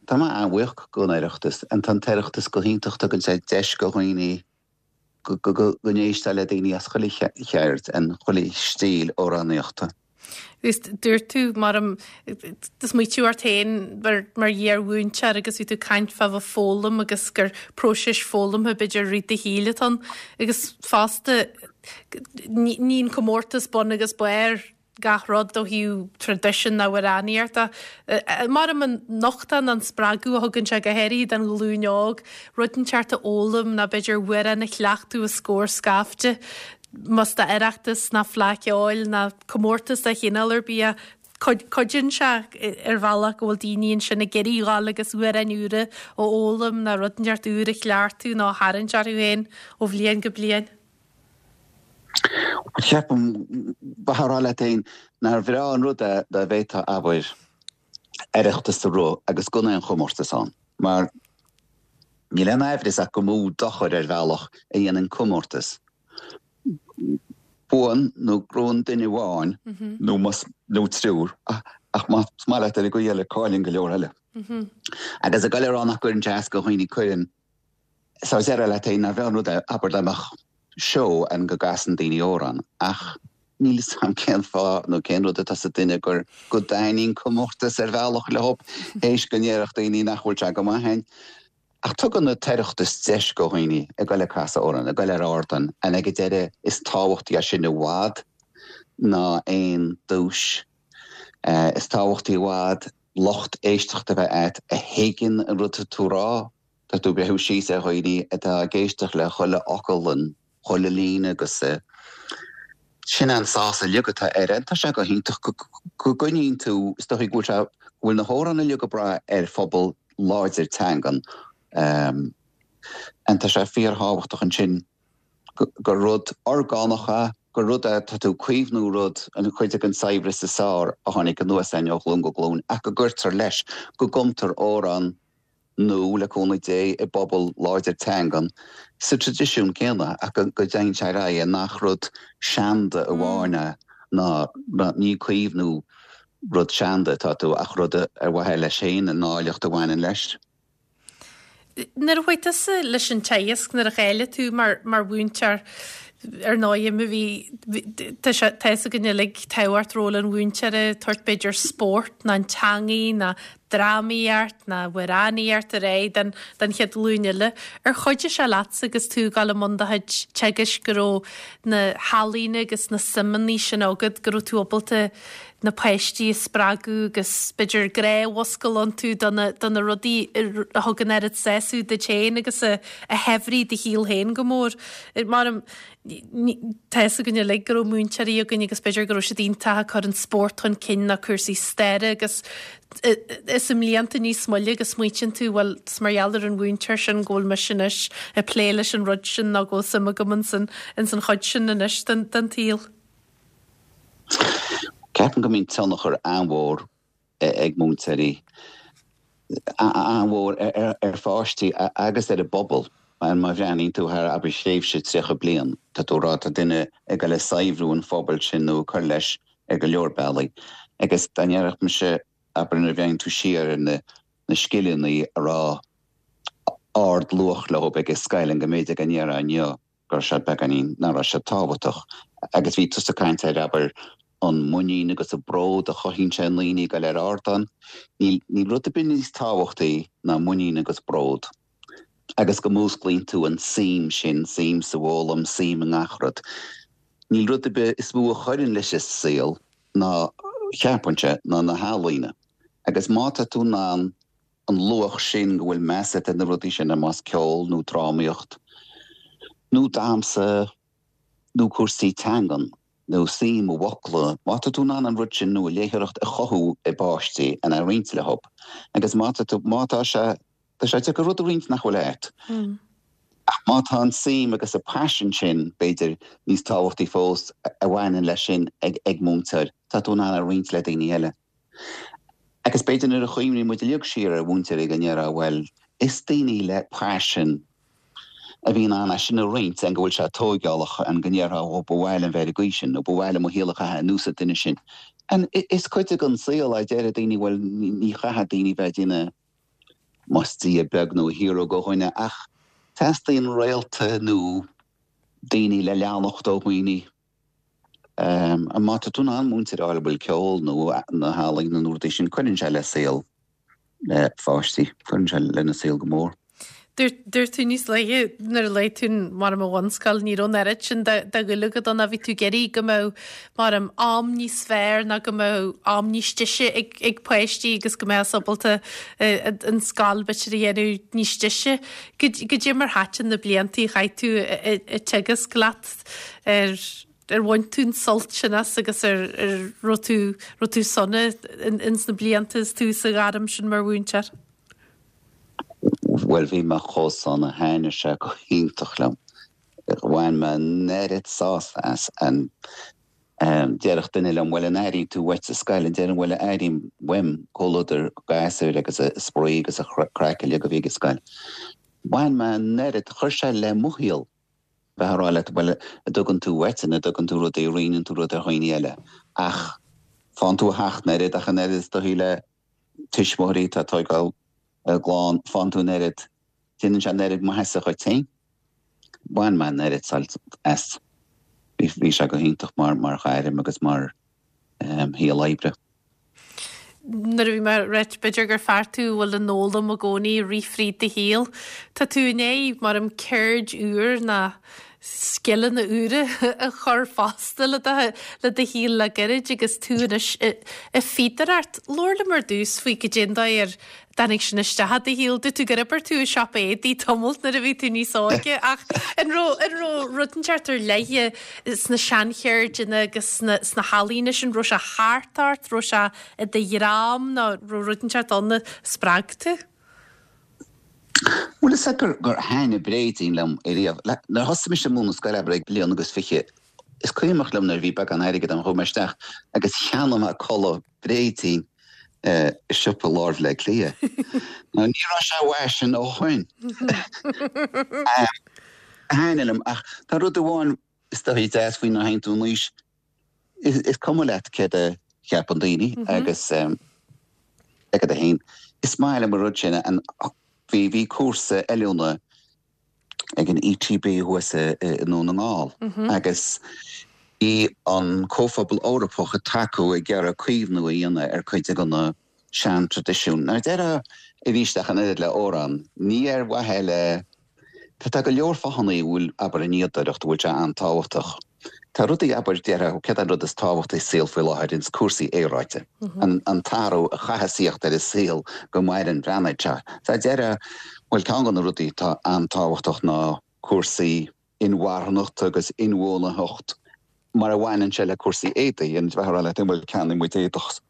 Tá mé an-bhuíoch don Oireachtas. Tá an tOireachtas go hiontach, tugann sé deis go dhaoine go n-éisteá le daoine as chuile cheird and chuile stíl amhránaíochta. Agus dúirt tú, mar do smaoitigh tú ort féin mar iar-mhúinteoir agus bhí tú ag caint fá bheith ag foghlaim agus gur próiseas foghlamtha b'fhéidir i rith do shaoil atá ann. Agus fosta, ní an comórtas bun agus barr gach rud ó thaobh traidisiún na n-amhránaíochta. Mar an nochtadh nó an spreagadh a thugann sé go háirithe don ghlúin óg, rud inteacht a fhoghlaim nó b'fhéidir amhrán a chleachtadh os comhair scaifte, más d'Oireachtas ná Fleadh Cheoil ná comórtas de chineál ar bith é. Cuidíonn sé ar bhealach go bhfuil daoine ansin ag iarraidh dhul agus amhráin úra a fhoghlaim nó rud inteacht úr a chleachtadh nó a tharraingt orthu féin ó bhliain go bliain. Ceapaim, bheifeá ag rá leat féin, nár bhreá an rud é dá bhféadfá, abair, Oireachtas a rith agus gan aon chomórtas ann, mar níl aon aimhreas ach gur mó dochar ar bhealach a dhéanann comórtas. Buann nó gnóthaíonn duine amháin nó más, nó triúr, ach más maith leat ar an gcaoi eile cailleann go leor eile. Agus ag goil a rá nach gcuireann sé as go dhaoine, cuireann. So déarfá leat féin, nár bhreá an rud é, abair dá mbeadh seó ann go gcasann daoine amhrán, ach níl 'fhios a'm cén fáth nó cén rud atá sa duine gur go dtaitníonn comórtas ar bhealach leo, théis go ndéarfadh daoine nach bhfuil sé go maith féin. Ach tugann an tOireachtas deis go dhaoine ag goil ag casadh amhrán, ag goil ar ardán, and ag an deireadh is tábhachtaí é sin i bhfad ná aon duais. Is tábhachtaí i bhfad lucht éisteachta a bheith a'd a thuigeann an rud atá tú a rá. Tá tú ag breathnú síos ar dhaoine atá ag éisteacht le chuile fhocal and chuile líne agus sin an sásamh uilig atá air. Tá sé go hiontach go gcoinníonn tú, is dóigh go bhfuil sé, go bhfuil na hamhráin uilig ag brath ar phobal láidir teangan and tá sé fíorthábhachtach ansin gur rud orgánach é, gur rud é, tá tú ag caomhnú rud, an chuid den saibhreas is fearr a tháinig anuas againn ó ghlúin go glúin ach go gcuirtear leis, go gcumtar amhrán nua, le cúnamh Dé, i bpobal láidir teangan, sa traidisiún céanna, ach go dtéann sé ar aghaidh, nach rud seanda amháin é, ná ní caomhnú rud seanda atá tú, ach rud ar mhaithe leis féin, an áilleacht a bhaineann leis. Nuair a chuaigh tusa leis an teagasc, nuair a cháiligh tú mar mhúinteoir, ar ndóigh, má bhí, tá sé, tá fhios againn uilig tábhacht ról an mhúinteora, tabhairt b'fhéidir spórt ná an teangaidh ná drámaíocht ná amhránaíocht ar aghaidh don don chéad ghlúin eile. Ar chuidigh sé leatsa agus tú ag dul i mbun do chuid teagaisc go raibh na healaíona agus na suimeanna sin agat, go raibh tú ábalta na páistí a spreagadh agus b'fhéidir grá a mhúscailt iontu do na do na rudaí a thug an oiread sásamh duit féin agus a a shaibhrigh do shaol féin go mór. Mar tá fhios againn uilig go raibh múinteoirí againn agus b'fhéidir go raibh siad iontach ag cur an spórt chun cinn nó cúrsaí staire agus is i mblianta níos moille go smaoitíonn tú bhuel is mar gheall ar an mhúinteoir sin go bhfuil mise anois ag plé leis an rud sin nó go bhfuil suim agam ins an chuid sin anois den tsaol. Ceapaim go mbíonn tionchar an-mhór ag múinteoirí, an-mhór ar pháistí agus ar an bpobal. Má bhreathnaíonn tú thar, abair, thréimhse 30 bliain, tá tú ag rá tá duine ag dul ag saibhriú an phobail sin nó ag cur leis ar go leor bealaí. Agus dá ndéarfadh mise, abair, nuair a bhreathnaíonn tú siar ar na scileanna a raibh ard-luach leo ag an scoil, an go mb'fhéidir go ndéarfá inniu, go raibh siad beagáinín, nach raibh siad tábhachtach. Agus bhí tusa ag caint ar, abair, an muinín agus an bród a chothaíonn sé i ndaoine ag dul ar ardán. Níl, níl rud ar bith níos tábhachtaí ná muinín agus bród. Agus go músclaíonn tú an suim sin, suim sa bhfoghlaim, suim i ngach rud. Níl rud ar bith is mó a chuireann leis an saol ná, cheapfainnse, ná na healaíona. Agus má tá tú in ann an luach sin, go bhfuil meas agat ar na rudaí sin, más ceol nó drámaíocht nó damhsa nó cúrsaí teangan nó suim i bhfocla, má tá tú in ann an rud sin nó an léitheoireacht a chothú i bpáistí and a roinnt leo agus má tá tú, má tá sé, tá sé deacair rud a roinnt nach bhfuil agat. Ach má tá an suim agus an paisean sin, b'fhéidir, níos tábhachtaí fós a bhaineann leis sin ag múinteoir, tá tú in ann a roinnt le daoine eile. Agus b'fhéidir nuair a chuimhníonn muid uilig siar ar mhúinteoirí go ndéarfá, bhuel, is daoine le paisean a bhí in ann é sin a roinnt, and go bhfuil sé tóigeálach, and go ndéarfá, ó, ba mhaith liom bheith ar an gcaoi sin, nó ba mhaith liom mo shaol a chaitheamh ar nós an duine sin. And is cuid den saol é, deir daoine, bhuel, ní chaithfidh daoine bheith ag déanamh, más Dia beag nó hero do dhuine, ach teastaíonn réalta nó daoine le leanacht ó dhaoine. Má tá tú in ann múinteoir a fháil a bhfuil ceol nó na healaíona nó rudaí sin, cuireann sé le saol pháistí, cuireann sé lena saol go mór. Dúirt tú níos luaithe nuair a luaigh tú mar an bhunscoil, ní raibh an oiread sin de dhúil agat ann, bhí tú ag iarraidh go mbeadh mar an am níos fearr ná go mbeadh am níos deise ag ag páistí agus go mbeadh ábalta an scoil b'fhéidir a dhéanamh níos deise. Goidé mar thaitin na blianta a chaith tú ag teagasc leat Ar ar bhain tú an sult sin as agus ar ar raibh tú raibh tú sona ins na blianta is tú sa ghairm sin mar mhúinteoir? Bhuel bhí mé chomh sona, thaitnigh sé go hiontach liom. Bhain mé an oiread sásamh as and déarfadh duine liom bhuel an airíonn tú uait sa scoil? And déarfainn bhuel airím uaim comhluadar gasúir agus a spraoi agus a craic uilig a bhí ag an scoil. Bhain mé an oiread, chuir sé le mo shaol. bheith ag rá leat, bhuel, a dtugann tú uait, an dtugann tú rudaí, a roinneann tú rud ar dhaoine eile. Ach faigheann tú a theacht an oiread, ach an oiread is dóichí le tuismitheoirí atá ag tóigeáil a gclann, faigheann tú an oiread, déanann sé an oiread maitheasa dhuit féin. Bhain mé an oiread sult as. Bhí sé go hiontach mar ghairm agus mar shaol oibre. Nuair a bhí mé ag ráit, b'fhéidir gur fear tú a bhfuil an fhoghlaim i gcónaí ag rith fríd do shaol. Tá tú i ndiaidh, mar an ceird úr ná scileanna úra a chur fosta le do le do shaol le gairid agus tú anois ag fíodóireacht. Labhair liom ar dtús faoi goidé an dóigh ar dtáinig sin isteach i do shaol. Dúirt tú gur oibir tú i siopa éadaí tamalt nuair a bhí tú níos óige ach an raibh an raibh rud inteacht ar leith sna seancheirdeanna agus sna sna healaíona sin, raibh sé thart ort, raibh sé i do dhream nó raibh rud inteacht ann a spreag tú? Bhuel is ea gur gur thaitnigh bréidín liom ariamh. Nuair a thosaigh mise ag múineadh scoile abair ag bliain agus fiche, is cuimhneach liom nuair a bhí beagán airgid agam chuaigh mé isteach agus cheannaigh mé culaith bréidín i siopa lár Bhaile Átha Cliath. Now ní raibh sé i bhfaisean ó shoin. Thaitnigh liom ach tá rud amháin is dóichí deas faoi nuair a théann tú in aois, is cuma leat céard a cheapann daoine agus agat féin. Is maith liom an rud sin. Bhí bhí cúrsa oiliúna ag an ETB thuas i nDún na nGall agus bhí an Comhphobal Eorpach ag tacú ag iarraidh caomhnú a dhéanamh ar cuid de na sean-traidisiúin. Now déarfá arís ach an oiread le amhrán, ní ar mhaithe le, tá go leor fáthanna a bhfuil, abair, an fhíodóireacht, a bhfuil sé an-tábhachtach. Tá rudaí, abair, déarfá, céard é an rud is tábhachtaí sa saol faoi láthair, ins cúrsaí aeráide, an t-athrú a chaithfeas thíocht ar an saol go maireann an phláinéad seo. So déarfá, bhuel, ceann de na rudaí atá an-tábhachtach ná cúrsaí inmharthanachta agus inbhuanaitheacht mar a bhaineann sé le cúrsaí éadaí. An bheifeá ag rá leat, bhuel, ceannaíonn muid éadach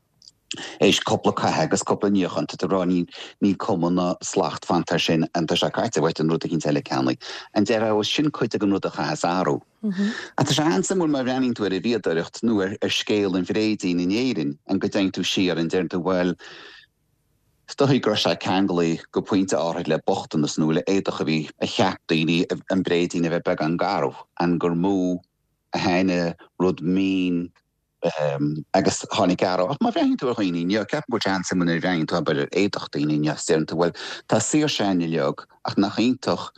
éis cúpla caitheamh agus cúpla níochán, tá tú ag rá níl cuma ná slacht fanta air sin, an tá sé caite uait an rud eicínt eile a cheannaigh. An déarfá, bhuel, sin cuid den rud a chaithfeas athrú. Ach tá sé an-suimiúil má bhreathnaíonn tú ar an bhfíodóireacht nó ar scéal an bhréidín in Éirinn, an go dtéann tú siar, an deireann tú, bhuel, is dóigh go raibh sé ceanglaithe go pointe áithrid le bochtanas nó le éadach a bhí, a cheap daoine an bréidín a bheith beagán garbh, an gur mó a tháinig rud mín agus tháinig athrú. Ach má bhreathnaíonn tú ar dhaoine inniu, ceapaim go bhfuil sé an-suimiúil nuair a bhreathnaíonn tú abair ar éadach daoine inniu is deireann tú bhuel tá saoirse againn uilig ach nach iontach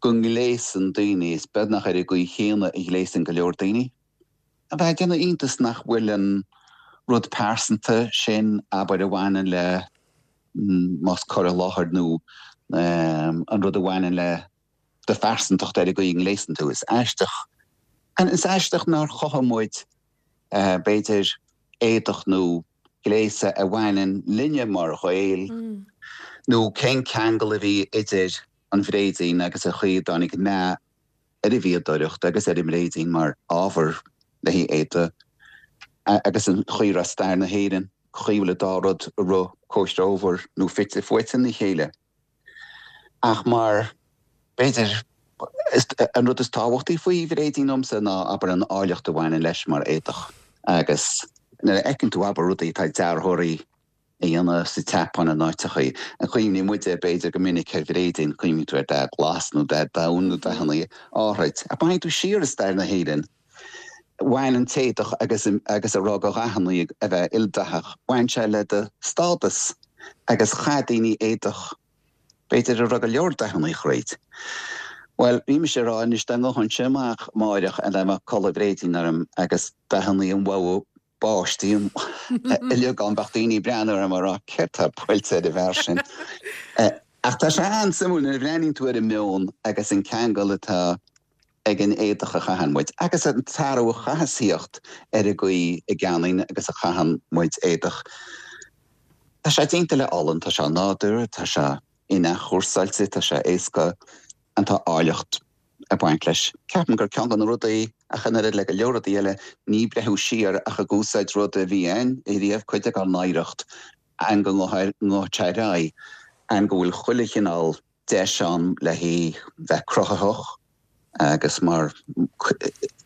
go ngléasann daoine, is beagnach ar an gcaoi chéanna a ghléasann go leor daoine. A bheith ag déanamh iontas nach bhfuil an rud pearsanta sin, abair, a bhaineann le más cur i láthair nó an rud a bhaineann le do phearsantacht ar an gcaoi a ngléasann tú. Is aisteach, is aisteach nár chothaigh muid, b'fhéidir, éadach nó gléasadh a bhaineann linne mar Ghaeil, nó cén ceangal a bhí idir an bhréidín agus an chaoi a dtáinig meath ar an bhfíodóireacht agus ar an mbréidín mar ábhar le haghaidh éadaigh agus an chaoi a raibh stair na hÉireann, chaoi a bhfuil an dá rud ag rith comhthreomhar nó fite fuaite ina chéile. Ach mar, b'fhéidir, an rud is tábhachtaí faoi bhréidín domsa ná, abair, an áilleacht a bhaineann leis mar éadach. Agus nuair a fheiceann tú, abair, rudaí atá dearthóirí a dhéanamh sa tSeapáin in áiteachaí, an cuimhníonn muide, b'fhéidir, go minic ar bhréidín, cuimhníonn tú ar dath glas nó dath donn nó dathanna áithrid. Ach má théann tú siar i stair na hÉireann, bhain an t-éadach agus agus a raibh de dhathanna a bheith ildathach, bhain sé le do stádas agus chaith daoine éadach, b'fhéidir a raibh go leor dathanna thríd. Bhuel, bhí mise ag rá anois dá ngabhfainnse amach amáireach and dá mbeadh culaith bhréidín orm agus dathanna an bhogha báistí uilig ann, bheadh daoine ag breathnú orm ag rá céard tá buailte ar an bhfear sin? Ach tá sé an-suimiúil nuair a bhreathnaíonn tú ar an meon agus an ceangal atá ag an éadach a chaitheann muid, agus an t-athrú a chaithfeas thíocht ar an gcaoi a gceannaíonn agus a chaitheann muid éadach. Tá sé déanta le olann, tá sé nádúrtha, tá sé in-athchúrsáilte, tá sé éasca, and tá áilleacht ag baint leis. Ceapaim gur ceann de na rudaí, ach an oiread le go leor rudaí eile, ní breathnú siar ach ag úsáid rud a bhí ann riamh, cuid dár n-oidhreacht, and go ngabhfaidh sé ar aghaidh, and go bhfuil chuile chineál deis ann le haghaidh bheith cruthaitheach agus mar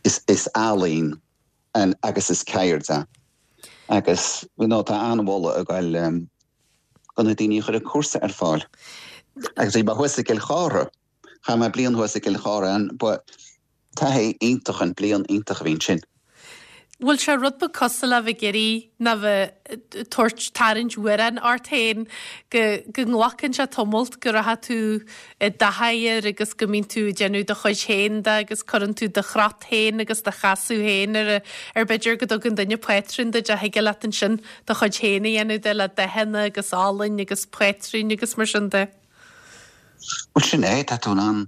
is ealaín agus is ceird é. Agus you know tá an-mholadh ag goil do na daoine a chuir an cúrsa ar fáil. Agus bhí mé thuas i gCill Chártha, chaith mé bliain thuas i gCill Chártha and ba taithí iontach an bliain iontach a bhí ansin. Bhfuil sé rud beag cosúil le bheith ag iarraidh ná bheith ag tabhairt, tarraingt mhóráin ort féin, go, go nglacann sé tamalt go rachaidh tú i dtaithí air agus go mbíonn tú ag déanamh do chuid féin de agus cuireann tú do chrot féin agus do chasadh féin ar, ar b'fhéidir go dtugann duine pátrún duit ach thig leat ansin do chuid féin a dhéanamh de le dathanna agus olainn agus pátrúin agus mar sin de. Bhuel sin é, tá tú in ann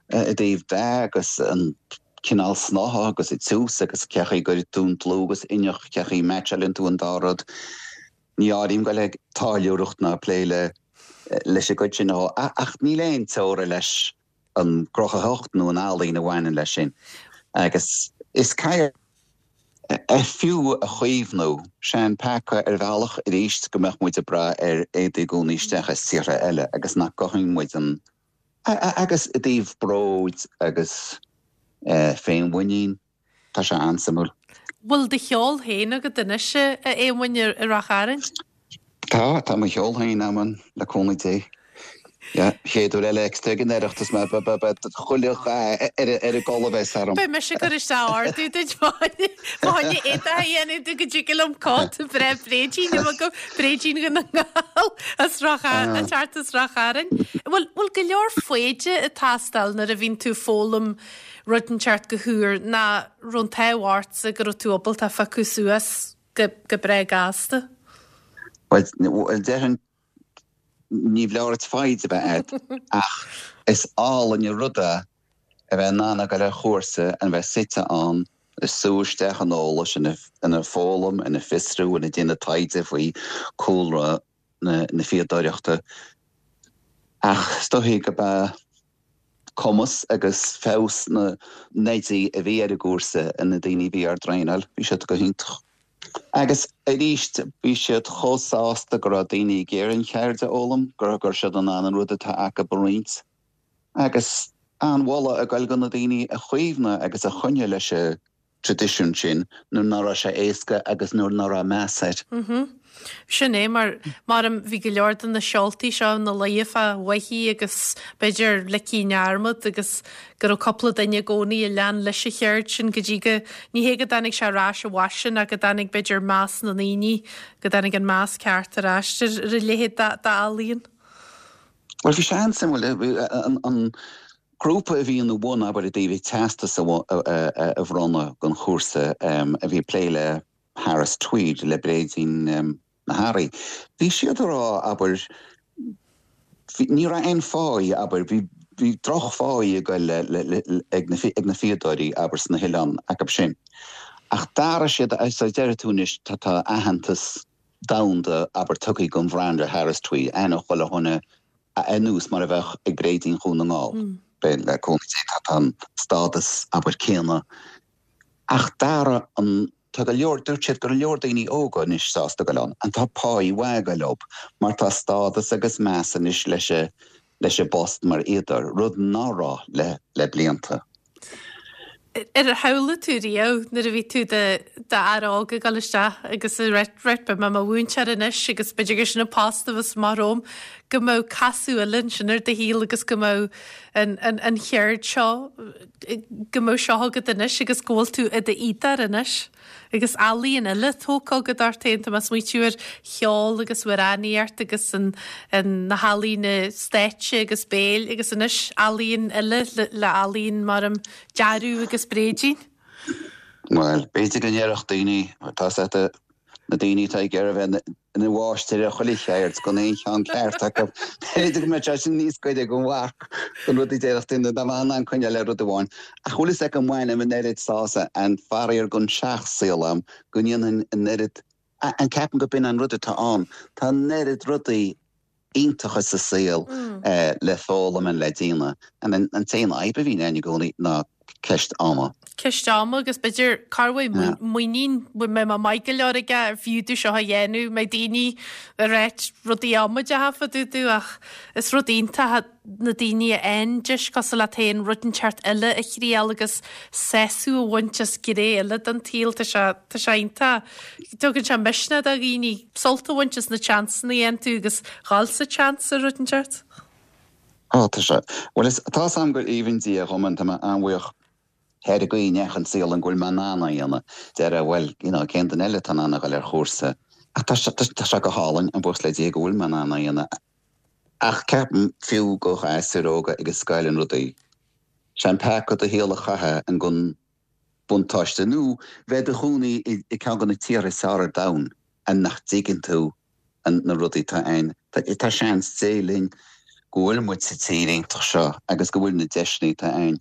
i dtaobh dath agus an cineál snáithe agus an tiús agus cé chaoi a gcuireann tú an dlúth agus inneach, cé chaoi a meaitseálann tú an dá rud. Ní áirím goil ag táilliúireacht ná plé le leis an gcuid sin ach níl aon teora leis an gcruthaitheacht nó an ealaín a bhaineann leis sin agus is ceird é fiú a chaomhnú. Sé an peaca ar bhealach arís go mbeadh muid ag brath ar éadaí i gcónaí isteach as tíortha eile agus nach gcothaíonn muid an Agus i dtaobh bróid agus féinmhuinín, tá sé an-suimiúil. Bhfuil do cheol féin agat anois, a Éamoinn, i Ráth Chairn? Tá, tá mo cheol féin agam, le cúnamh Dé. Yeah, chéad uair eile ag an Oireachtas mé, beidh chuile dhath ar an gculaith a bheas orm. Beidh mise ag cur isteach ordú duit fá choinne éadach a dhéanamh duit go dtig liom cóta breá bréidín a bheith agam, bréidín Dhún na nGall as Ráth Chairn, ag teacht as Ráth Chairn. Bhfuil, bhfuil go leor foighde ag teastáil nuair a bhíonn tú ag foghlaim rud inteacht go húr ná raibh an t-ádh ortsa go raibh tú ábalta phiocadh suas go, go breá gasta? Bhuel, déarfainn ní foláir duit foighid a bheith agat ach is álainn an rud é a bheith in ann a ghoil ar chúrsa and bheith suite ann. Ag sú isteach an eolais, ina foghlaim, ina fiosrú, ina déanamh taighde faoi cúlra na fíodóireachta. Ach is dóichí go b'ea cumas agus feabhas na n-oidí a bhí ar an gcúrsa, na daoine a bhí ár dtraenáil, bhí siad go hiontach. Agus arís, bhí siad chomh sásta go raibh daoine ag iarraidh an cheird a fhoghlaim, go raibh siad in ann an rud atá acu a roinnt. Agus an-mholadh ag goil go na daoine a chaomhnaigh agus a choinnigh leis an traidisiún sin nuair ná raibh sé éasca agus nuair ná raibh meas air. Sin é, mar, maram, bhí go leor de na seoltaí seo ina luí fá bhoithigh agus b'fhéidir ligthe i ndearmad agus go raibh cúpla duine i gcónaí a lean leis an cheird sin go dtí go, ní hé go dtáinig sé ar ais i bhfaisean ach go dtáinig b'fhéidir meas na ndaoine, go dtáinig an meas ceart ar ais ar a leithéid d'ealaíon. Bhuel, bhí sé an-suimiúil. An grúpa a bhí ina bhun, abair, i dtaobh an teastas a bhronnadh don chúrsa a bhí ag plé le Harris Tweed, le bréidín na hearraí, bhí siad ag rá, abair, ní raibh aon pháí, abair, bhí bhí drochpháí ag goil ag na fíodóirí, abair, sna hoileáin acu sin. Ach d'athraigh siad, so deir tú anois, tá aitheantas domhanda, abair, tugtha don bhranda Harris Tweed, aithne chuile dhuine ar nós mar a bheadh ag Bréidín Dhún na nGall. Le cúnamh Dé tá an stádas, abair, céanna. Ach d'athraigh an, tá go leor, dúirt siad go leor daoine óga anois sásta goil ann, and tá páí mhaith ag goil leo mar tá stádas agus meas anois leis a, leis an bpost mar fhíodóir, rud ná raibh le, le blianta. Ar shamhlaigh tú riamh nuair a bhí tú d'fhear óg ag dul isteach agus ag rá right beidh mé i mo mhúinteoir anois agus b'fhéidir gur sin an post a bheas amach romham, go mbeadh casadh eile ansin ar do shaol agus go mbeadh an, an, an cheird seo, go mbeadh seo agat anois agus go bhfuil tú i d'fhíodóir anois? Agus ealaíon eile tógtha agat ort féin, tá mé ag smaoitiú ar cheol agus amhránaíocht agus an, na healaíona stáitse agus béil agus anois ealaíon eile le, le ealaíon mar an dearadh agus bréidín. Bhuel, b'fhéidir go ndéarfadh daoine, tá 's agat, na daoine atá ag iarraidh a bheith ina mháistir ar chuile cheird, gan aon cheann ceart acu. B'fhéidir go mbeadh sé sin níos gaire don mharc don rud a déarfadh duine dá mbeadh in ann coinneáil le rud amháin. Ach bhfuil fhios agat go mbainim an oiread sásamh and faraor gan seach-saol a'm go ndéanfainn an oiread and ceapaim go b'in an rud atá ann. Tá an oiread rudaí iontacha sa saol le foghlaim and le déanamh and an t-aon fhadhb a bhíonn ann i gcónaí ná ceist ama. Ceist ama agus b'fhéidir cá bhfuil muinín, bhfuil mé maith go leor aige ar fiú domh seo a dhéanamh, mbeidh daoine ag ráit rudaí amaideacha fá dtaobh domh ach is rud iontach na daoine a fhaigheann deis cosúil leat féin rud inteacht eile a thriail agus sásamh a bhaint as gné eile den tsaol, tá sé, tá sé iontach. Tugann sé misneach do dhaoine sult a bhaint as na tseansanna a fhaigheann tú agus dhul sa tseans ar rud inteacht. Ó, tá sé. Bhuel, is, tá 'fhios a'm gur aoibhinn Dia dhom and tá mé an-bhuíoch ar an gcaoi a ndeachaigh an saol ann go bhfuil mé in ann é a dhéanamh. Déarfá, bhuel, you know, cén duine eile atá in ann a dhul ar chúrsa? Ach tá sé, tá sé go hálainn, and buíochas le Dia go bhfuil mé in ann é a dhéanamh. Ach ceapaim, fiú go ghasúir óga ag an scoil and rudaí, sé an peaca do shaol a chaitheamh and gan buntáiste nó bheith i do chónaí i gceann de na tíortha is fearr ar domhan and nach dtuigeann tú na rudaí atá ann. Tá seans Dé linn go bhfuil muid sa tír iontach seo agus go bhfuil na deiseanna atá ann.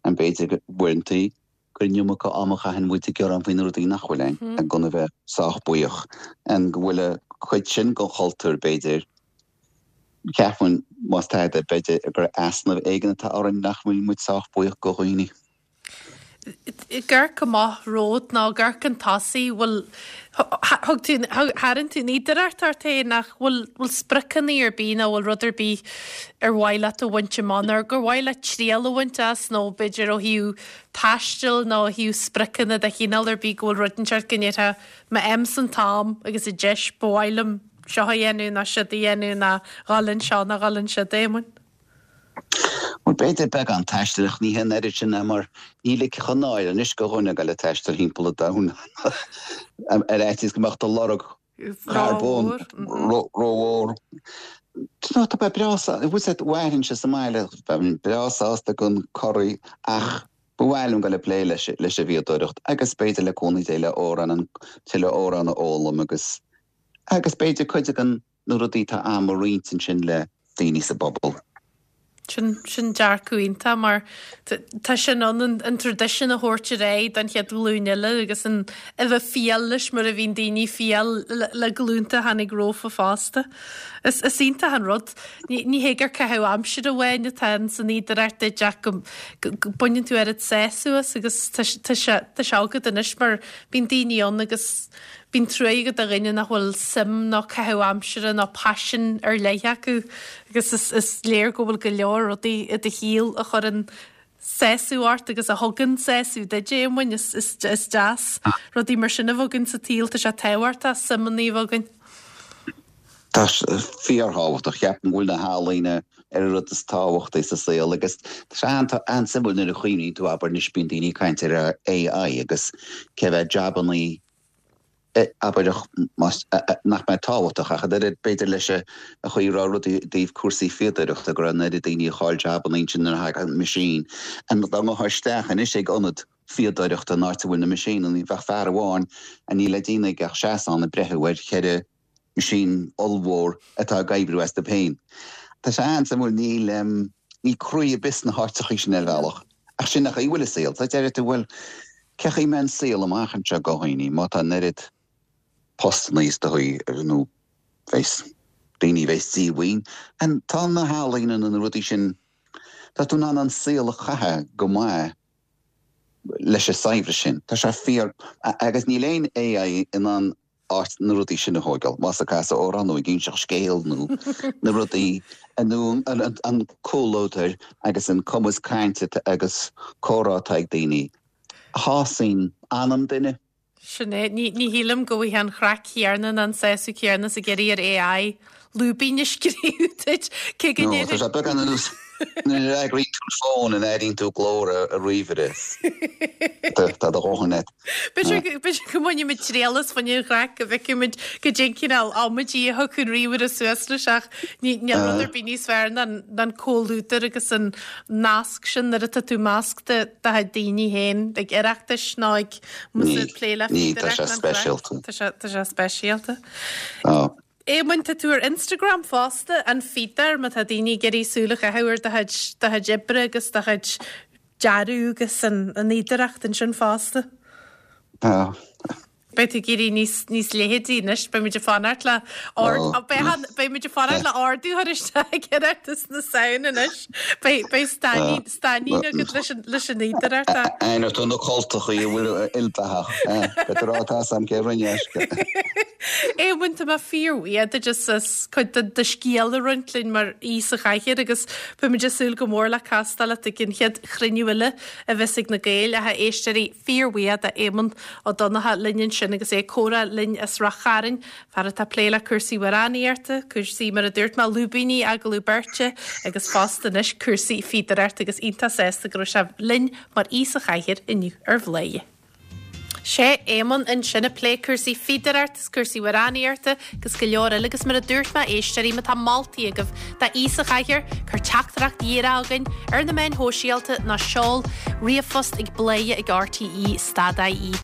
And b'fhéidir go uaireantaí gur an iomarca ama a chaitheann muid ag gearán faoi na rudaí nach bhfuil ann and gan a bheith sách buíoch. And go bhfuil an chuid sin den chultúr b'fhéidir, ceapaim más tada, b'fhéidir gur easnamh éigin atá orainn nach bhfuil muid sách buíoch go dhaoine. Ag amharc amach romhat nó ag amharc chun tosaigh, bhfuil, thug tú, tharraing tú an fhíodóireacht ort féin ach bhfuil, bhfuil spriocanna ar bith nó bhfuil rud ar bith ar mhaith leat a bhaint amach nó gur mhaith leat triail a bhaint as nó b'fhéidir ó thaobh taistil nó ó thaobh spriocanna de chineál ar bith go bhfuil rud inteacht go ndéarfá má fhaighimse an t-am agus an deis ba mhaith liom seo a dhéanamh nó siúd a dhéanamh nó dhul anseo nó dhul ansiúd, Éamoinn. Bhuel, b'fhéidir beagán taistil, ach ní hé an oiread sin é mar ní ligfeadh an náire anois go dhuine a ghoil ag taisteal thimpeall an domhain ar fhaitíos go mbeadh do lorg carbóin rómhór. No, tá mé breá sásta, bhfuil 's agat, mhairfinnse sa mbaile, bheinn breá sásta gan corraí ach ba mhaith liom dul ag plé leis an bhfíodóireacht agus b'fhéidir le cúnamh Dé le amhrán, an tuilleadh amhrán a fhoghlaim agus agus b'fhéidir cuid den na rudaí atá a'm a roinnt ansin le daoine sa bpobal. Sin, sin dearcadh iontach mar tá sin ann an, an traidisiún a thabhairt ar aghaidh don chéad ghlúin eile agus an, a bheith fial leis mar a bhíonn daoine fial le, le glúnta a tháinig rompu fosta. Is, is iontach an rud. Ní, ní hé gur caitheamh aimsire amháin atá in san fhíodóireacht duit ach go, go, go baineann tú oiread sásamh as agus tá, tá sé, tá sé agat anois mar bíonn daoine ann agus Bíonn truaigh agat do dhuine nach bhfuil suim nó caitheamh aimsire nó paisean ar leith acu agus is is léir go bhfuil go leor rudaí i do shaol a chuireann sásamh ort agus a thugann sásamh duit, a Éamoinn. Is is is deas rudaí mar sin a bheith againn sa tsaol. Tá sé tábhachtach suimeanna a bheith againn. Tá sé fíorthábhachtach. Ceapaim go bhfuil na healaíona ar an rud is tábhachtaí sa saol agus tá sé an-suimiúil nuair a chuimhníonn tú, abair, anois bíonn daoine ag caint ar AI agus cé mhéad jabannaí abair nach mbeidh tábhachtach ach an oiread b'fhéidir leis an chaoi a raibh rudaí i dtaobh cúrsaí fíodóireachta go raibh an oiread daoine a chaill jabannaí ansin nuair a thagadh an machine. Dá ngabhfá isteach anois ag ionad fíodóireachta an áit a bhfuil na machine, bheadh fear amháin a níl le déanamh aige ach seasamh ann ag breitheamh ar cheithre machine ollmhór atá ag oibriú astu féin. Tá sé an-suimiúil, níl, níl croí ar bith sna háiteachaí sin ar bhealach. Ach sin an chaoi a bhfuil an saol. So deir tú, bhuel, cé chaoi a mbeidh an saol amach anseo do dhaoine má tá an oiread postanna is dóigh nó bheas daoine a bheas díomhaoin. And tá na healaíona nó na rudaí sin, tá tú in ann an saol a chaitheamh go maith leis an saibhreas sin. Tá sé fíor, agus níl aon AI in ann áit na rudaí sin a thóigeáil, más ag casadh amhrán nó ag inseacht scéil nó na rudaí nó an comhluadar agus an cumas cainte agus comhrá atá ag daoine a shásaíonn anam duine. Sin é. Ní shílim go bhfaighfeá an chraic chéanna ná an sásamh céanna is ag iarraidh ar AI lúibín a scríobh duit, cé go ndéarfainn. Tá sé beagán ar nós nuair a fhreagraíonn tú an fón an airíonn tú glór an ríomhaire. Tá do dhóthain agat. B'fhéidir go mbainfimid triail as fá choinne an chraic go bhfeicfimid goidé an cineál amaidí a thiocfadh an ríomhaire suas leis ach níl rud ar bith níos fearr ná an comhluadar agus an nasc sin nuair atá tú i measc do chuid daoine féin ag Oireachtais nó ag plé le Tá sé speisialta. Tá sé speisialta. Éamoinn, tá tú ar Instagram fosta, An Fíodóir, má tá daoine ag iarraidh súil a chaitheamh ar do chuid, do chuid oibre agus do chuid dearadh agus an fhíodóireacht ansin fosta. Tá. Beidh tú ag éirí níos, níos leitheadaí anois, beidh muid ag fanacht le ord, beidh, beidh muid ag fanacht le ordú a chur isteach ag Oireachtas na Samhna anois. Beidh, beidh stáinín, stáinín agat leis an, leis an fhíodóireacht. Aithneoidh tú na cultachaí a bhfuil ildathach, eh? Beidh tú ag rá tá 'fhios a'm cé rinne aisce. Éamoinn, tá mé fíorbhuíoch duit as as cuid de do scéal a roinnt linn mar aoi sa chathaoir agus beimid ag súil go mór le castáil leat ag an chéad chruinniú eile a bheas ag na Gaeil. Ach a éisteoirí, fíorbhuíoch d'Éamonn Ó Donnchadha linn ansin agus é ag comhrá linn as Ráth Chairn, fear atá ag plé le cúrsaí amhránaíochta, cúrsaí, mar a dúirt mé, lúibíní, agallamh beirte agus fosta anois cúrsaí fíodóireachta agus iontach sásta go raibh sé linn mar aoi sa chathaoir inniu ar Bhladhaire. Sé Éamonn ansin ag plé cúrsaí fíodóireachta is cúrsaí amhránaíochta agus go leor eile agus mar a dúirt mé éisteoirí má tá moltaí agaibh d'aoi sa chathaoir cuir teachtaireacht dhíreach chugainn ar na meáin shóisialta nó seol ríomhphost ag bladhaire ag rte stad ie.